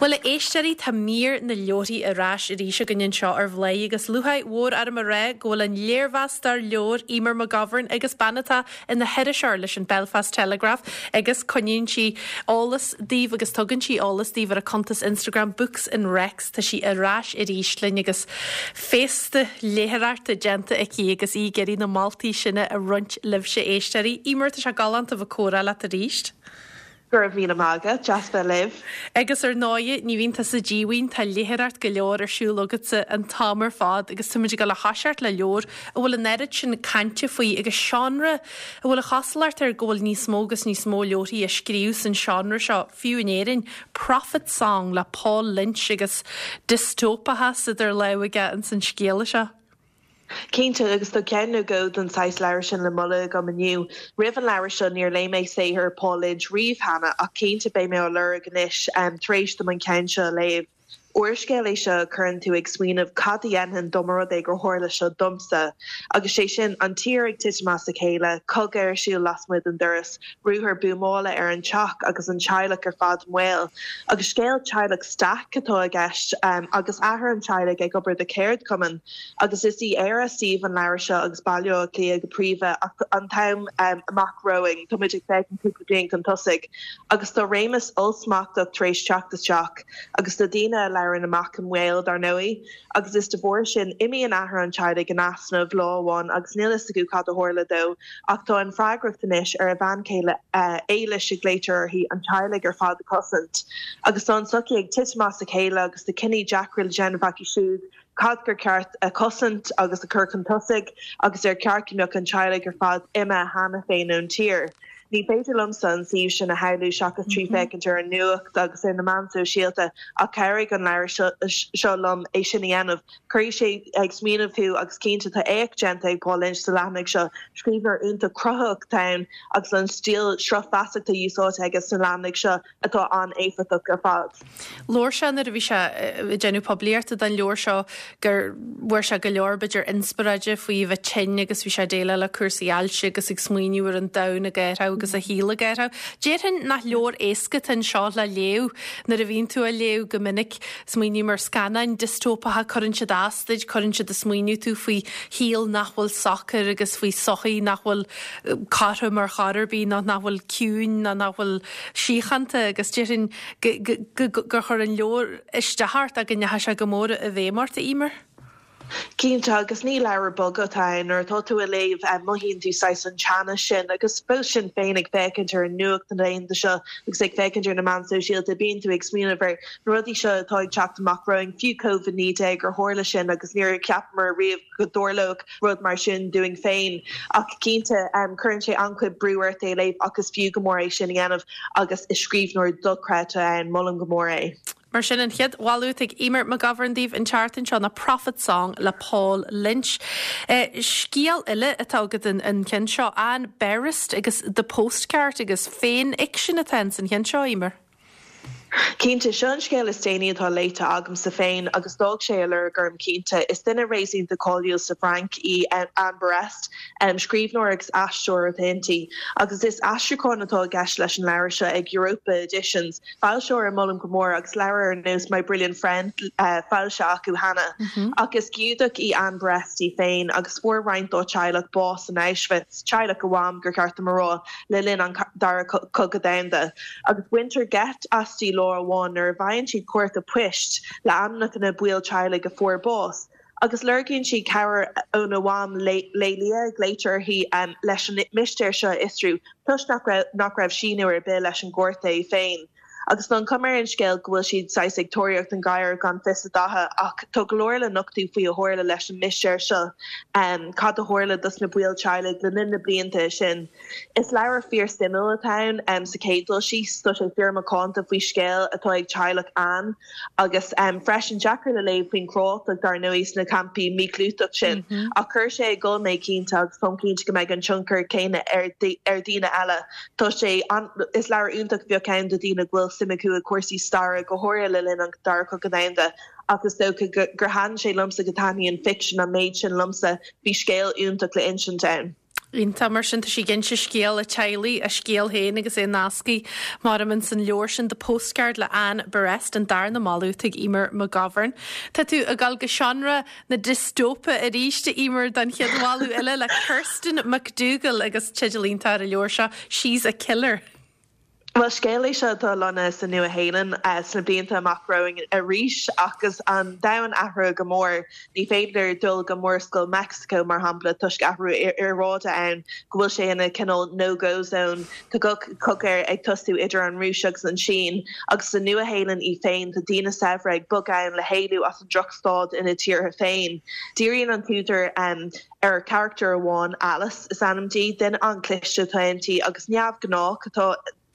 Bhuel, a éisteoirí, tá mír na leabharthaí ar ais arís againn anseo ar Bhladhaire agus lúcháir mhór orm a rá go bhfuil an léirmheastóir leabhar Eimear McGovern agus bean atá ina hiriseoir leis an Belfast Telegraph agus coinníonn sí eolas daoibh agus tugann sí eolas daoibh ar a cuntas Instagram Books and Recs. Tá sí ar ais arís linn agus féasta léitheoireachta déanta aici agus í ag iarraidh na moltaí sin a roinnt libhse éisteoirí. Eimear, tá sé galánta bheith ag comhrá leat arís. Go raibh míle maith agat, deas bheith libh. Agus ar ndóighe, ní bhíonn tusa díomhaoin, tá léitheoireacht go leor ar siúl agatsa an t-am ar fad agus táimid ag dul a thoiseacht le leabhar a bhfuil an oiread sin cainte faoi agus seánra a bhfuil an chosúlacht air go bhfuil níos mó agus níos mó leabharthaí á scríobh san seánra seo, fiú in Éirinn, Prophet Song le Paul Lynch agus diostóipeachas idir lámha aige ins an scéal seo. Cinnte, agus tá ceann nó dhó den saghas leabhar sin le moladh agam inniu. Roimh an leabhar seo níor léigh mé saothar Paul Lynch riamh cheana, ach cinnte beidh mé á lorg anois tar éis dom an ceann seo a léamh. Úrscéal é seo a chuireann tú ag smaoineamh cad a dhéanfainn dá mba rud é gur tharla seo domsa? Agus sé sin, an tír ag titim as a chéile, cogadh ar siúl lasmuigh den doras, ruathar buamála ar an teach agus an teaghlach ar fad i mbaol. Agus scéal teaghlach Stack atá i gceist, agus athair an teaghlaigh ag obair do cheardchumann. Agus is í Éire suíomh an leabhair seo agus Baile Átha Cliath go príomha ach an t-am amach romhainn, tá muid ag féachaint cúpla bliain chun tosaigh agus tá réimeas ollsmachtach tar éis teacht isteach agus tá daoine a labhrann amach i mbaol, dar ndóigh. Agus is de bharr sin, imíonn athair an teaghlaigh in easnamh lá amháin agus níl fhios acu cad a tharla dó ach tá an freagracht anois ar a bhean chéile, Éilis a ghlaoitear uirthi, an teaghlach ar fad a chosaint. Agus tá an tsochaí ag titim as a chéile agus tá cinní deacra le déanamh acu siúd cad gur ceart a chosaint agus a chur chun tosaigh agus ar cheart go mbeadh an teaghlach ar fad imithe cheana féin ón tír. Ní féidir liomsa an suíomh sin a shamhlú seachas trí féachaint ar an nuacht agus ar na meáin sóisialta ach chabhraigh an leabhar seo liom é sin a dhéanamh. Cuirfidh sé ag smaoineamh thú agus cinnte tá éacht déanta ag Paul Lynch sa leathanaigh seo. Scríbhneoir iontach cruthaitheach atá ann agus an stíl sruth feasachta úsáidte aige sna leathanaigh seo atá an-éifeachtach ar fad. Labhair sé nuair a bhí sé ag déanamh poiblíochta don leabhar seo gur bhfuair sé go leor b'fhéidir inspioráide faoi a bheith tinn agus bhí sé ag déileáil le cúrsaí ailse agus ag smaoineamh ar an domhan ag athrú agus a shaol ag athrú. Déarfainn nach leabhar éasca atá anseo le léamh nuair a bhíonn tú á léamh go minic. Smaoiním ar scannáin diostóipeacha, cuireann siad as duit, cuireann siad ag smaoineamh tú faoi shaol nach bhfuil socair agus faoi sochaí nach bhfuil cothrom ar chor ar bith nó nach bhfuil ciúin nó nach bhfuil síochánta agus déarfainn gur chuir an leabhar isteach ort ach go ndeachaigh sé go mór i bhfeidhm ort, a Eimear. Cinnte, agus ní leabhar bog atá ann. Nuair atá tú á léamh, mothaíonn tú saghas an teannas sin agus fós sin féin ag féachaint ar an nuacht na laethanta seo agus ag féachaint ar na meáin sóisialta, bíonn tú ag smaoineamh ar na rudaí seo atá ag teacht amach romhainn, fiú Covid-19, gur tharla sin agus níor cheapamar riamh go dtarlódh rud mar sin dúinn féin. Ach cinnte, cuireann sé an-chuid brú ort é a léamh ach is fiú go mór é sin a dhéanamh agus is scríbhneoir dochreidte é, molaim go mór é. Mar sin, an chéad mholadh atá ag Eimear McGovern daoibh an tseachtain seo ná Prophet Song le Paul Lynch. Scéal eile atá agat an ceann seo, Anne Berest agus The Postcard agus féinfhicsean atá ins an cheann seo, Eimear. Cinnte, seo an scéal is déanaí atá léite agamsa féin agus d'fhág sé a lorg orm cinnte. Is duine réasúnta cáiliúil sa Bhfrainc í Anne Berest, scríbhneoir agus aisteoir atá inti, agus is aistriúchán atá i gceist leis an leabhar seo ag Europa Editions, foilsitheoir a molaim go mór agus leabhair ar nós My Brilliant Friend foilsithe acu cheana. Ach is Giúdach í Anne Berest í féin agus fuair roinnt dá teaghlach bás in Auschwitz, teaghlach a mham, gur cheart dom a rá. le linn an Dara Cogadh Domhanda, agus baintear geit aisti lá amháin nuair a bhfaigheann sí cárta poist le ainmneacha na baill teaghlaigh a fuair bás, agus lorgaíonn sí cabhair óna mham, Lélia a ghlaoitear uirthi, leis an mistéir seo a fhiosrú, toisc nach raibh síniú ar bith leis an gcárta é féin. Agus tá an chuma ar an scéal go bhfuil siad saghas ag tóraíocht an ghadhair gan fios a datha ach tá go leor le nochtadh faoi a tharla leis an mistéir seo, cad a tharla dos na baill teaghlaigh le linn na blianta sin. Is leabhar fíor suimiúil atá ann sa chéad dul síos, tá sé fíor macánta faoi scéal atá ag teaghlach Anne agus freisin deacair le léamh faoin chruálacht dar ndóigh sna campaí míchlúiteach sin ach chuir sé ag gol mé cinnte agus táim cinnte go mbeidh an tionchar céanna ar dhaoine eile. Tá sé an, is leabhar iontach a bheadh ann do dhaoine go bhfuil suim acu i gcúrsaí staire, go háirithe le linn an Dara Cogadh Domhanda, ach is dócha gur thaitin sé liomsa go dtaitníonn ficsean an méid sin liomsa, bhí scéal iontach le insint ann. Iontach, mar sin tá sí ag inse scéal a teaghlaigh, a scéal féin agus é nasctha mar ins an leabhar sin The Postcard le Anne Berest, an darna moladh atá ag Eimear McGovern. Tá tú ag dul go seánra na diostóipe arís, a Eimear, don chéad mholadh eile le Kirsten McDougall agus teideal iontach ar an leabhar seo, She's a Killer. Bhuel, scéal é seo atá lonnaithe sa Nua-Shéalainn sna blianta amach romhainn arís agus an domhan athraithe go mór. Ní féidir dul go Murascaill Meicsiceo, mar shampla, toisc athrú aeráide ann, go bhfuil sé ina cineál no-go zone. Tá cogadh ag tosú idir an Rúis agus an tSín. Agus sa Nua-Shéalainn í féin, tá daoine saibhre ag bogadh ann le héalú as an drochstaid ina dtíortha féin. Díríonn an t-údar ar charachtar amháin, Alice is ainm di. Duine an-chliste atá inti agus neamhghnách atá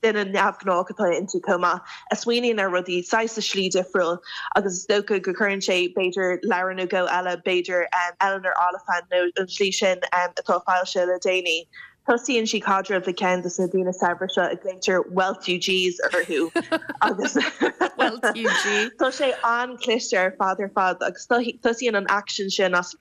duine neamhghnách atá inti chomh maith, a smaoiníonn ar rudaí saghas i slí difriúil agus is dócha go gcuireann sé b'fhéidir leabhar nó dhó eile, b'fhéidir Eleanor Oliphant nó an tslí sin atá foilsithe le déanaí. Tosaíonn sí caidreamh le ceann de na daoine saibhre seo a glaoitear Wealthugees orthu agus tá sé an-chliste ar fad ar fad agus tosaíonn an aicsean sin as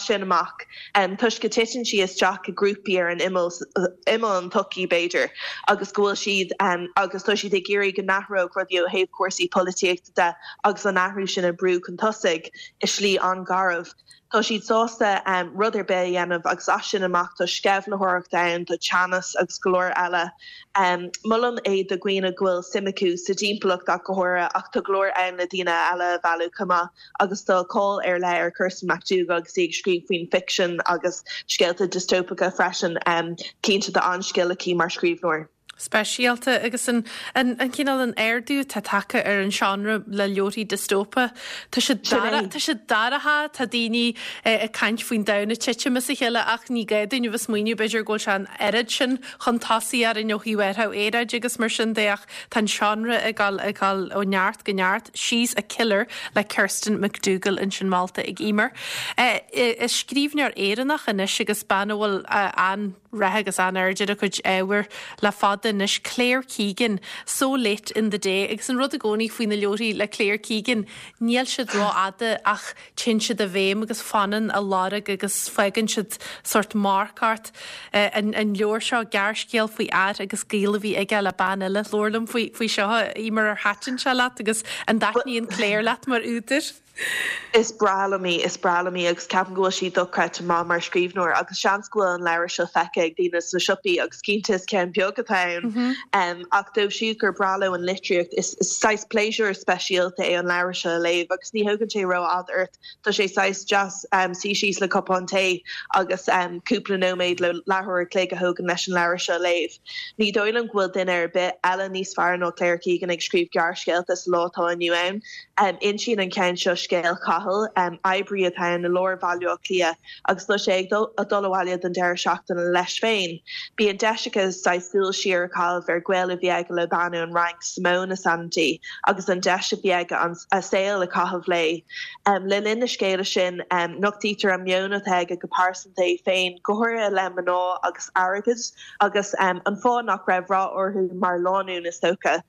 sin amach toisc go titeann sí isteach i grúpaí ar an imeall, imeall an tsochaí b'fhéidir, agus go bhfuil siad agus tá siad ag iarraidh go n-athródh rudaí ó thaobh cúrsaí polaitíochta de agus an athrú sin a brú chun tosaigh i slí an-gharbh. Tá siad sásta rud ar bith a dhéanamh agus as sin amach tá sceimhlitheoireacht ann, tá teannas agus go leor eile. Molaim é do dhaoine go bhfuil suim acu sa dtimpeallacht ach go háirithe ach tá go leor ann le daoine eile a mhealladh chomh maith agus tá cáil ar leith ar Kirsten McDougall agus í ag scríobh faoin ficsean agus scéalta diostóipeacha freisin. Cinnte tá an-scil aici mar scríbhneoir. speisialta agus an an cineál an ardú atá tagtha ar an seánra le leabharthaí diostóipe. Tá sé tá sé dorcha, tá daoine ag caint faoin domhan ag titim as a chéile ach ní gá dúinn a bheith smaoineamh b'fhéidir go bhfuil sé an oiread sin chun tosaigh orainn ó thaobh athrú aeráide agus mar sin de ach tá an seánra ag dul ag dul ó neart go neart. She's a Killer le Kirsten McDougall ansin molta ag Eimear. Is scríbhneoir Éireannach anois agus bean a bhfuil an rath agus an-aird ar a cuid ábhair le fada anois, Claire Keegan, So Late in the Day agus an rud i gcónaí faoi na leabharthaí le Claire Keegan, níl siad rófhada ach téann siad i bhfeidhm agus fanann a lorg agus fágann siad sórt marc ort. An leabhar seo, gearrscéal faoi fhear agus gaol a bhí aige le bean eile. Labhair liom faoi seo, Eimear, ar thaitin sé leat agus an dtaitníonn Claire leat mar údar? Is breá liom í, is breá liom í agus ceapaim go bhfuil sí dochreidte maith mar scríbhneoir agus seans go bhfuil an leabhar seo feicthe ag daoine sna siopaí agus cinnte is ceann beag atá ann ach dóibh siúd gur breá leo an litríocht is saghas pléisiúr speisialta é an leabhar seo a léamh agus ní thógann sé rófhada ort, tá sé saghas deas suí síos le cupán tae agus cúpla nóiméad nó leathuair a chloig a thógann leis an leabhar seo a léamh. Ní dóigh liom go bhfuil duine ar bith eile níos fearr ná Claire Keegan ag scríobh gearrscéalta sa lá atá inniu ann. Insíonn an ceann seo scéal Chathail, oibrí atá ann i lár Bhaile Átha Cliath agus tá sé ag dul abhaile don deireadh seachtaine leis féin. Bíonn deis aige saghas súil siar a chaitheamh ar ghaol a bhí aige le bean ón Fhrainc, Simone is ainm di, agus an deis a bhí aige a saol a chaitheamh léi. Le linn na scéala sin, nochtaítear an meon atá aige go pearsanta é féin, go háirithe i leith mná agus airgid, agus an fáth nach raibh rath orthu mar lánúin, is dócha.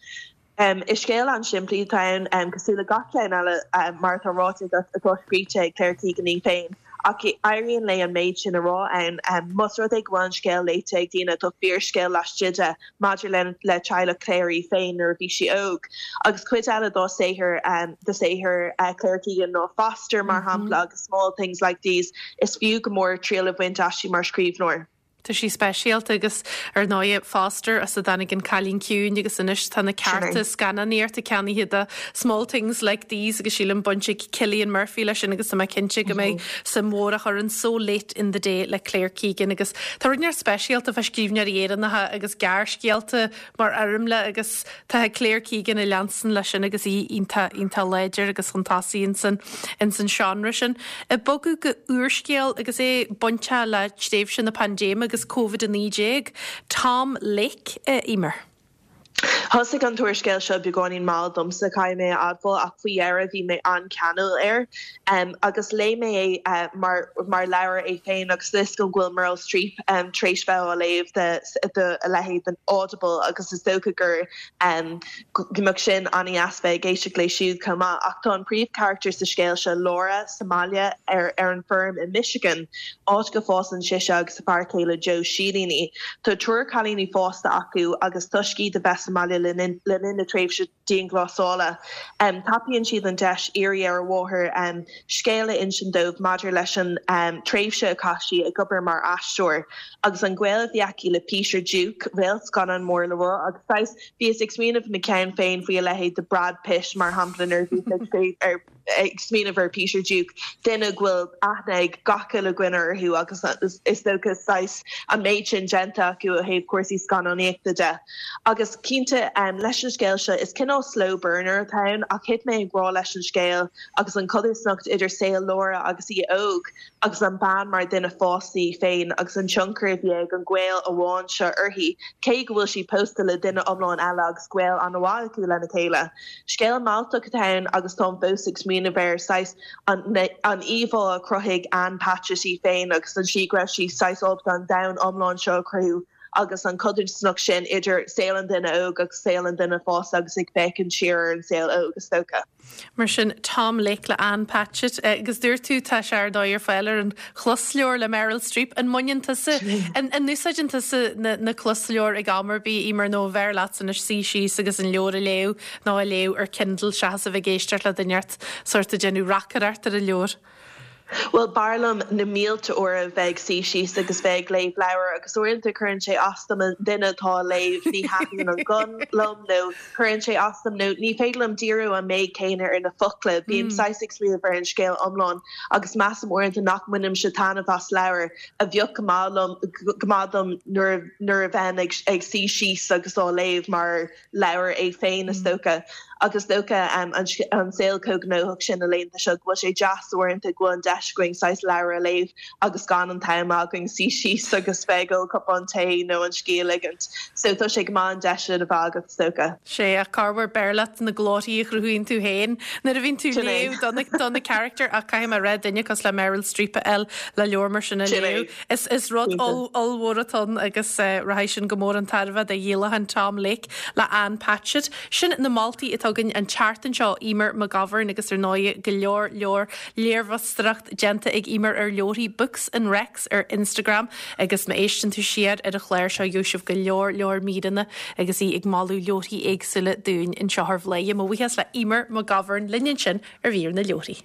Is scéal an-simplí atá ann, cosúil le gach ceann eile, mar atá ráite agat, atá scríte ag Claire Keegan í féin, ach éiríonn léi an méid sin a rá ann. Más rud é go bhfuil an scéal léite ag daoine, tá fíorscéal laistigh de maidir le teaghlach Claire í féin nuair a bhí sí óg. Agus cuid eile dá saothar, de saothar Claire Keegan ná Foster, mar shampla, agus Small Things Like These, is fiú go mór triail a bhaint aisti mar scríbhneoir. Tá sí speisialta agus ar ndóigh Foster as a dtáinig an Cailín Ciúin agus anois tá na cearta scannánaíochta ceannaithe do Small Things Like These agus sílim baint ag Cillian Murphy leis sin agus tá mé cinnte go mbeidh suim mhór á chur in So Late in the Day le Claire Keegan agus tá rud inteacht speisialta fá scríbhneoirí Éireannacha agus gearrscéalta mar fhoirmle agus Tá Claire Keegan ag leanstan leis sin agus í iontach, iontach láidir agus chun tosaigh ins an, ins an seánra sin. Ag bogadh go úrscéal agus é bainteach le tréimhse na paindéime agus Covid-19, Tom Lake, a Eimear. Thosaigh an t-úrscéal seo beagáinín mall domsa, caithfidh mé a admháil, ach faoi dheireadh bhí mé an-cheanúil air. Agus léigh mé é mar mar leabhar é féin agus tá 'fhios agam go bhfuil Meryl Streep tar éis bheith á léamh do a leithéid den Audible agus is dócha gur go mbeadh sin an-dheas bheith ag éisteacht léi siúd chomh maith. Ach tá an príomhcharachtar sa scéal seo, Laura, sa mbaile ar ar an bhfeirm i Michigan, áit go bhfásann sise agus a fear céile Joe silíní. Tá triúr cailíní fásta acu agus toisc iad a bheith sa mbaile le linn na tréimhse dianghlasála, tapaíonn siad an deis iarraidh ar a mháthair scéal a insint dóibh maidir leis an tréimhse a chaith sí ag obair mar aisteoir agus an gaol a bhí aici le Peter Duke, réalt scannán mór le rá agus saghas bhíos ag smaoineamh i mo cheann féin faoi a leithéid de Brad Pitt mar shampla nuair a bhíos ag ar ag smaoineamh ar Peter Duke, duine go bhfuil aithne ag gach uile dhuine orthu agus is dócha saghas an méid sin déanta acu ó thaobh cúrsaí scannánaíochta de. Agus cinnte, leis an scéal seo, is cineál slow burner atá ann ach thit mé i ngrá leis an scéal agus an chodarsnacht idir saol Laura agus í óg agus an bean mar duine fásta í féin agus an tionchar a bhí ag an gaol amháin seo uirthi, cé go bhfuil sí pósta le duine iomlán eile agus gaol an-mhaith acu lena chéile. Scéal mealltach atá ann agus táim fós ag smaoineamh air, saghas an an íomhá a chruthaigh Ann Patchett í féin agus an tslí go raibh sí saghas ábalta an domhan iomlán seo a chruthú agus an chodarsnacht sin idir saol an duine óg agus saol an duine fásta agus ag féachaint siar ar an saol óg, is dócha. Mar sin, Tom Lake le Ann Patchett. Agus dúirt tú, tá sé ar ndóigh ar fáil ar an chlosleabhar le Meryl Streep. An mbaineann tusa, an úsáideann tusa na closleabhair ag am ar bith, Emer, nó an bhfearr leatsa anois suí síos agus an leabhar a léamh nó a léamh ar Kindle seachas a bheith ag éisteacht le duine inteacht sórt ag déanamh reacaireacht ar an leabhar? Bhuel, b'fhearr liom na mílte uair a bheith ag suí síos agus bheith ag léamh leabhair agus uaireanta cuireann sé as dom an duine atá á léamh, ní thaitníonn an guth liom nó cuireann sé as dom nó ní féidir liom díriú an méid céanna ar na focla. Bím saghas ag smaoineamh ar an scéal iomlán agus measaim uaireanta nach mbainimse taitneamh as leabhar a bheadh go maith liom, go maith dom nuair nuair a bheinn ag ag suí síos agus á léamh mar leabhar é féin, is dócha. Agus is dócha an saol chomh gnóthach sin na laethanta seo go bhfuil sé deas uaireanta go bhfuil an deis againn saghas leabhar a léamh agus gan an t-am againn suí síos agus bheith ag ól cupán tae nó an scíth a ligint. So tá sé go maith an deis sin a bheith agat, is dócha. Sea, ach corruair b'fhearr leat na glórthaí a chruthaíonn tú féin nuair a bhíonn tú ag léamh do na do na carachtair ach caithfidh mé a rá duine cosúil le Meryl Streep a fháil le leabhar mar sin a léamh. Is rud ollmhór atá ann agus rachaidh sin go mór chun tairbhe do dhíolachán Tom Lake le Ann Patchett. Sin na moltaí atá againn an tseachtain seo, Eimear McGovern agus ar ndóigh go leor leor léirmheastóireacht déanta ag Eimear ar leabharthaí Books and Recs ar Instagram agus má éisteann tú siar ar an chlár seo gheobhaidh sibh go leor leor míreanna agus í ag moladh leabharthaí éagsúla dúinn anseo ar Bhladhaire. Mo bhuíochas le Eimear McGovern linn ansin ar mhír na leabharthaí.